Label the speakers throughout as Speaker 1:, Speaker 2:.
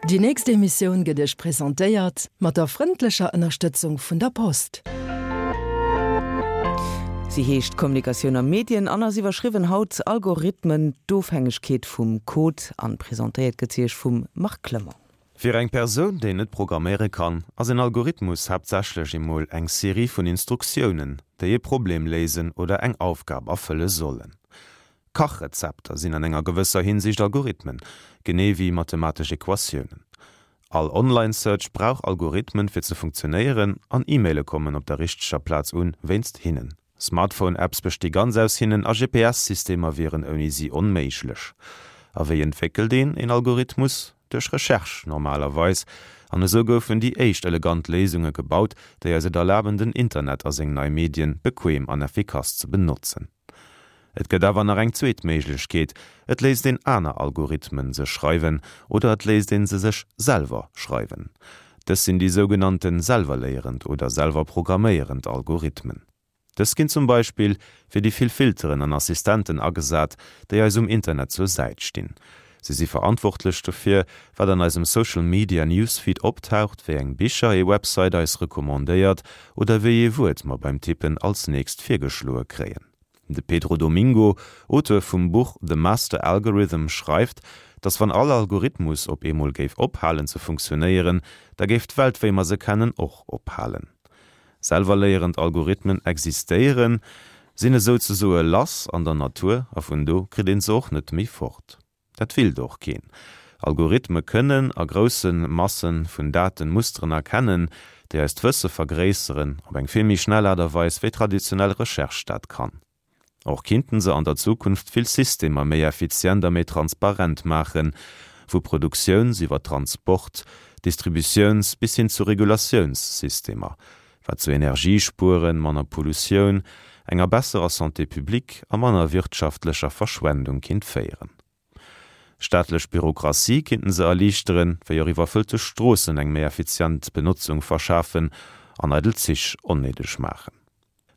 Speaker 1: Déi nächst Emissioun gëtt Iech presentéiert mat der frëndlecher Ënnerstëtzung vun der Post.
Speaker 2: Si heescht Kommunikatioun a Medien an ass iwwerschriwwen haut Algorithmen, d'Ofhängegkeet vum Code an presentéiert gëtt si Iech vum Marc Clement.
Speaker 3: Fir eng Persoun, déi net programméiere kann, ass en Algorithmus haaptsächlech emol eng Serie vun Instruktiounen, déi e Problem léisen oder eng Aufgab erfëlle sollen. Kachrezepter sinn an enger gewësser Hinsicht Algorithmen, genee wéi mathematesch Equatiounen. All Online-Search brauch Algorithmen, fir ze funktionéieren, an E-Maile kommen op der richteger Plaz un, wéinst hinnen. Smartphone-Apps besti ganz aus hinnen a GPS-Systemer wieren ouni si onméiglech. A wéi entwéckelt een een Algorithmus? Duerch Recherche normalerweis. An esou goufen déi éischt elegant Léisunge gebaut, déi eis et erlaben den Internet a seng nei Medien bequem an effikass ze benotzen. Et gëtt awer nach eng zweet Méiglechkeet, Et léisst een aner Algorithmen sech schreiwen oder et léisst een se sech selwer schreiwen. Dës sinn déi sougenannte selwerléierend oder selwerprogramméierend Algorithmen. Dës ginn zum Beispill fir déi vill Filteren an Assistenten agesat, déi eis um Internet zur Säit stinn. Si si verantwortlech dofir, wat an eisem Social Media Newsfeed optaucht, wéi eng Bicher ee Website eis recommandéiert oder wéi ee Wuert mer beim Tippen als nächst virgeschloe kréien. De Pedro Domingo, Auteur vum Buch The Master Algorithm, schreift, dass wann all Algorithmus op eemol géif ophalen ze funktionéieren, da géif d'Welt wéi mer se kennen och ophalen. Selwerléierend Algorithmen existéieren, sinn esou ze soe lass an der Natur a vun do kritt een se och net méi fort. Dat willt och keen. Algorithme kënnen a grousse Masse vun Daten Musteren erkennen, déi eist Wësse vergréisseren, op eng vill méi schnell Aart a Weis wéi traditionell Recherche dat kann. Och kinnten se an der Zukunft vill Systemer méi effizient a méi transparent maachen, vu Produktiouns iwwer Transport, Distributiouns bis hin zu Regulatiounssystemer, wat zu Energiespueren, manner Pollutioun, enger besserer Santé publique a manner wirtschaftlecher Verschwendung kinnt féieren. Staatlech Bürokratie kinnten se erliichteren, wéi och iwwerfëllte Stroossen eng méi effizient Benotzung verschafen an eidel Zich onnéideg maachen.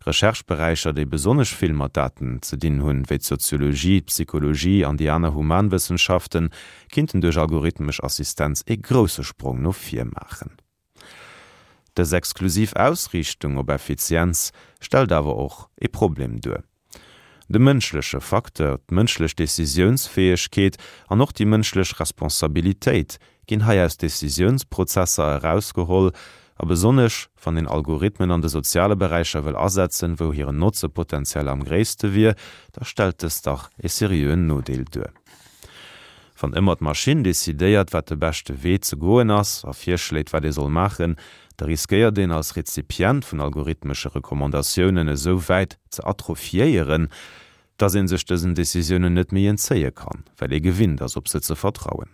Speaker 3: Recherche-Beräicher, déi besonnesch vill mat Daten ze dinn hunn, wéi d'Soziologie, d'Psychologie an déi aner Humanwëssenschaften, kinnten duerch algorithmesch Assistenz ee grousse Sprong no vir maachen. Dës exklusiv Ausriichtung op Effizienz stellt awer och ee Problem duer. De mënschleche Facteur, d'mënschlech Decisiounsfäegkeet an och déi mënschlech Responsabilitéit ginn hei aus Decisiounsprozesser erausgeholl, a besonnesch wann een Algorithmen an de soziale Beräicher wëll asetzen, wou hiren Notze potenziell am gréisste wier, da stellt dëst dach ee seriöen Nodeel duer. Wann ëmmer d'Maschinn decidéiert, wat de beschte Wee ze goen ass a virschléit, wat ee soll maachen, da riskéiert een als Rezipient vun algorithmesche Recommandatiounen esou wäit ze atrophiéieren, dass ee sech dësen Decisiounen net méi entzéie kann, well ee gewinnt ass, op se ze vertrauen.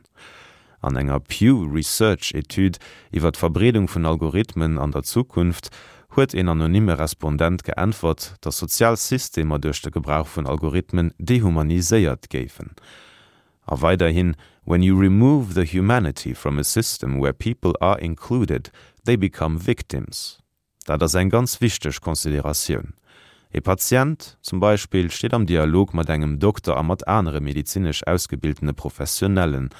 Speaker 3: An enger Pew Research Etüd iwwer d'Verbreedung vun Algorithmen an der Zukunft huet een anonyme Respondent geäntwert, dass sozial Systemer duerch de Gebrauch vun Algorithmen dehumaniséiert géifen. A weiderhin, When you remove the humanity from a system where people are included, they become victims. Dat ass eng ganz wichteg Consideratioun. E Patient zum Beispill steet am Dialog mat engem Dokter a mat anere medezinesch ausgebildene Professionellen.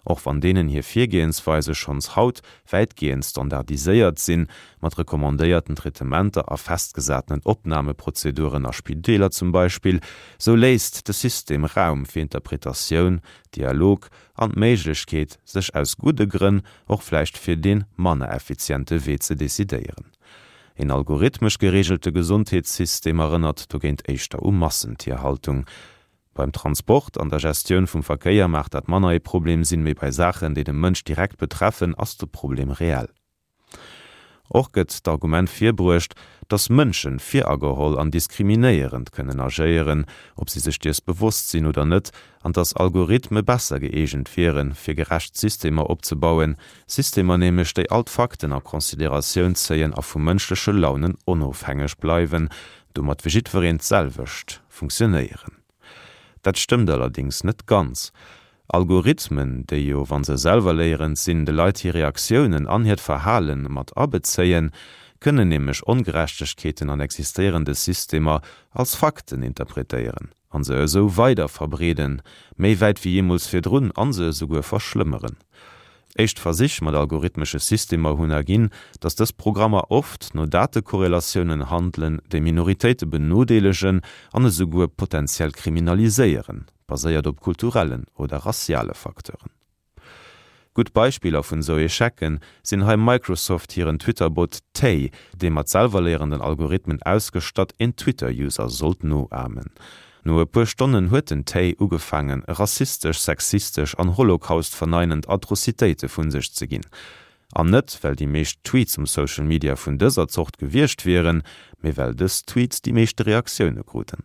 Speaker 3: Och wann deenen hir Virgehensweise schonns haut wäitgehend standardiséiert sinn, mat recommandéierten Traitementer a festgesatenen Opnahmeprozeduren a Spideeler zum Beispill, sou léisst de System Raum fir Interpretatioun, Dialog an d'Méiglechkeet, sech aus gudde Grënn och vläicht fir dee manner effiziente Wee ze decidéieren. Een algorithmesch gereegelte Gesondheetssystem erënnert dogéint éischter u Massentierhaltung. Beim Transport an der Gestioun vum Verkéier maach dat manner ee Problem sinn, mee bei Saachen, déi de Mënsch direkt betreffen, ass de Problem reell. Och gëtt d'Argument virbruecht, datt Mënsche virageholl an diskriminéierend kënnen agéieren, ob si sech dees bewosst sinn oder net, an datt Algorithme besser gëeegent wieren, fir gerecht Systemer opzebauen, Systemer nämlech, déi all d'Fakten a Consideratioun zéien a vu mënschleche Launen onofhängeg bleiwen, domat fir jiddwereen d'selwecht funktionéieren. Dat stëmmt allerdéngs net ganz. Algorithmen, déi jo, wa se selwerléierend sinn, de Leit hir Reaktiounen an hiert Verhale mat abezéien, kënnen nämlech Ongerechtegkeeten an existéierende Systemer als Fakten interpretéieren an se esou weider verbreeden, méi wäit wéi jeemools virdrun, an se esouguer verschlëmmeren. Éischt Versich mat algorithmesche Systemer hunn erginn, datt dës Programmer oft no Datekorrelatiounen handelen, déi Minoritéite benodeelegen an esouguer potenziell kriminaliséieren, baséiert op kulturellen oder rassiale Facteuren. Gutt Beispiller vun esou Echecen sinn hei Microsoft hiren Twitter-Bot Tay, dee mat selwerléierenden Algorithmen ausgestatt een Twitter-User sollt noahmen. No e puer Stonnen huet den Tay ugefaangen rassistesch, sexistesch an Holocaust-verneinend Atrocitéite vun sech ze ginn. An net well déi meescht Tweets um Social Media vun dëser Zort gewiescht wieren, mee well dës Tweets déi meeschte Reaktioune kruten.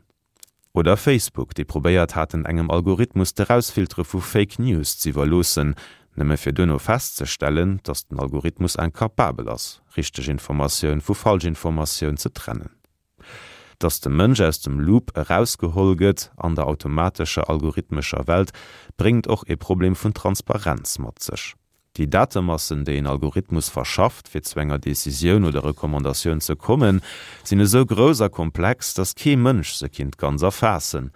Speaker 3: Oder Facebook, déi probéiert haten engem Algorithmus d'Erausfiltere vu Fake News z'iwwerloossen, nëmme fir duerno festzestellen, datt den Algorithmus incapabel ass, richteg Informatioun vu Falschinformatioun ze trennen. Datt de Mënsch aus dem Loop erausgeholl gëtt an der automatescher algorithmescher Welt, bréngt och ee Problem vun Transparenz mat sech. Déi Datemassen, déi een Algorithmus verschafft, fir zu enger Decisioun oder Recommandatioun ze kommen, sinn esou grouss a komplex, datt kee Mënsch se kinnt ganz erfaassen.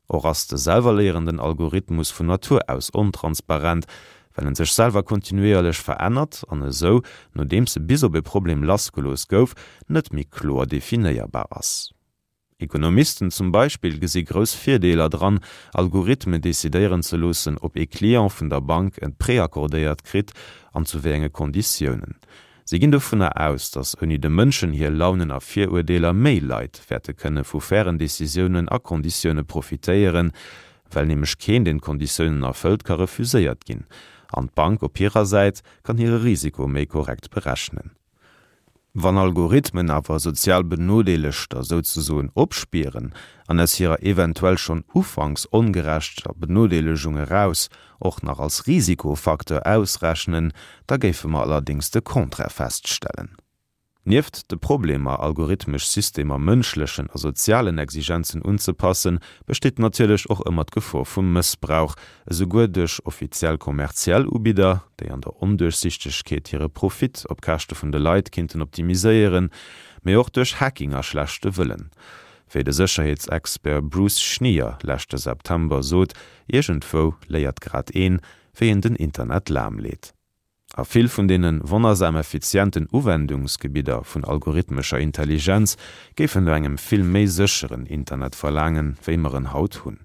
Speaker 3: Och ass de selwerléierenden Algorithmus vun Natur aus ontransparent, well en sech selwer kontinuéierlech verännert an esou, nodeems e bis op e Problem lassgelooss gouf, net méi kloer definéierbar ass. Ekonomisten zum Beispill gesi grouss Virdeeler dran, Algorithmen decidéieren ze loossen, ob ee Client vun der Bank en Prêt accordéiert kritt an zu wéi enge Konditiounen. Si ginn dovunner aus, datt ouni de Mënschen hir Launen a Viruerdeeler méi Leit wäerte kënne vu fairen Decisiounen a Konditioune profitéieren, well nämlech keen, deen d'Konditiounen erfëllt, ka refuséiert ginn an d'Bank op hirer Säit kann hire Risiko méi korrekt berechnen. Wann Algorithmen awer sozial Benodeelegter souzesoen opspieren an aus hirer eventuell schonn ufanks ongerechter Benodeelegung eraus och nach als Risikofacteur ausrechnen, da géife mer allerdéngs de Contraire feststellen. Nieft de Problemer, algorithmesch Systemer mënschlechen a sozialen Exigenzen unzepassen, besteet natierlech och ëmmer d'Gefor vum Mëssbrauch, esouguer duerch offiziell kommerziell Ubidder, déi an der Onduerchsichtegkeet hire Profit op Käschte vun de Leit kinnten optimiséieren, mee och duerch Hacking a schlechte Wëllen. Wéi de Sécherheetsexpert Bruce Schneier leschte September sot, Iergendwou léiert grad een, wéi een den Internet lahmleet. A vill vun deene wonnersam effizienten Uwendungsgebidder vun algorithmescher Intelligenz géifen no engem vill méi sécheren Internet verlaangen, wéi mer en haut hunn.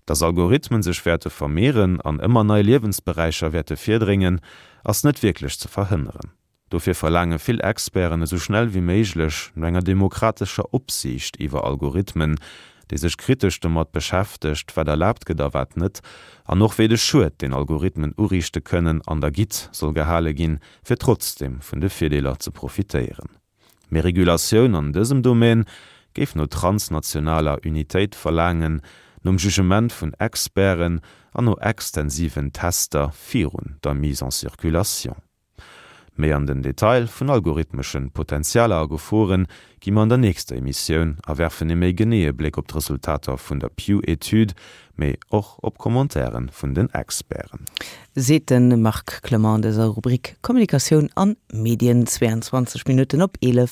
Speaker 3: Dass Algorithmen sech wäerte vermehren an ëmmer nei Liewensberäicher wäerte virdréngen, ass net wierklech ze verhënneren. Dofir verlaange vill Experten esou schnell wéi méiglech no enger demokratescher Opsiicht iwwer Algorithmen, déi sech kritesch domat beschäftegt, wat erlaabt gëtt a wat net, an och wéi de Schued, deen Algorithmen uriichte kënnen, an der Gitt soll gehale ginn, fir trotzdeem vun de Virdeeler ze profitéieren. Méi Regulatioun an dësem Domaine géif no transnationaler Unitéit verlaangen, nom Jugement vun Experten an no extensiven Tester virun der Mise en circulation. Méi an den Detail vun algorithmeschen Potentialer a Geforen gi mer an der nächster Emissioun a werfen ee méi geneeë Bléck op d'Resultater vun der Pew-Etüd, mee och op Commentairen vun den Experten.
Speaker 2: Seet de Marc Clement an dëser Rubrik Kommunikatioun an Medien. 22 Minutten op 11.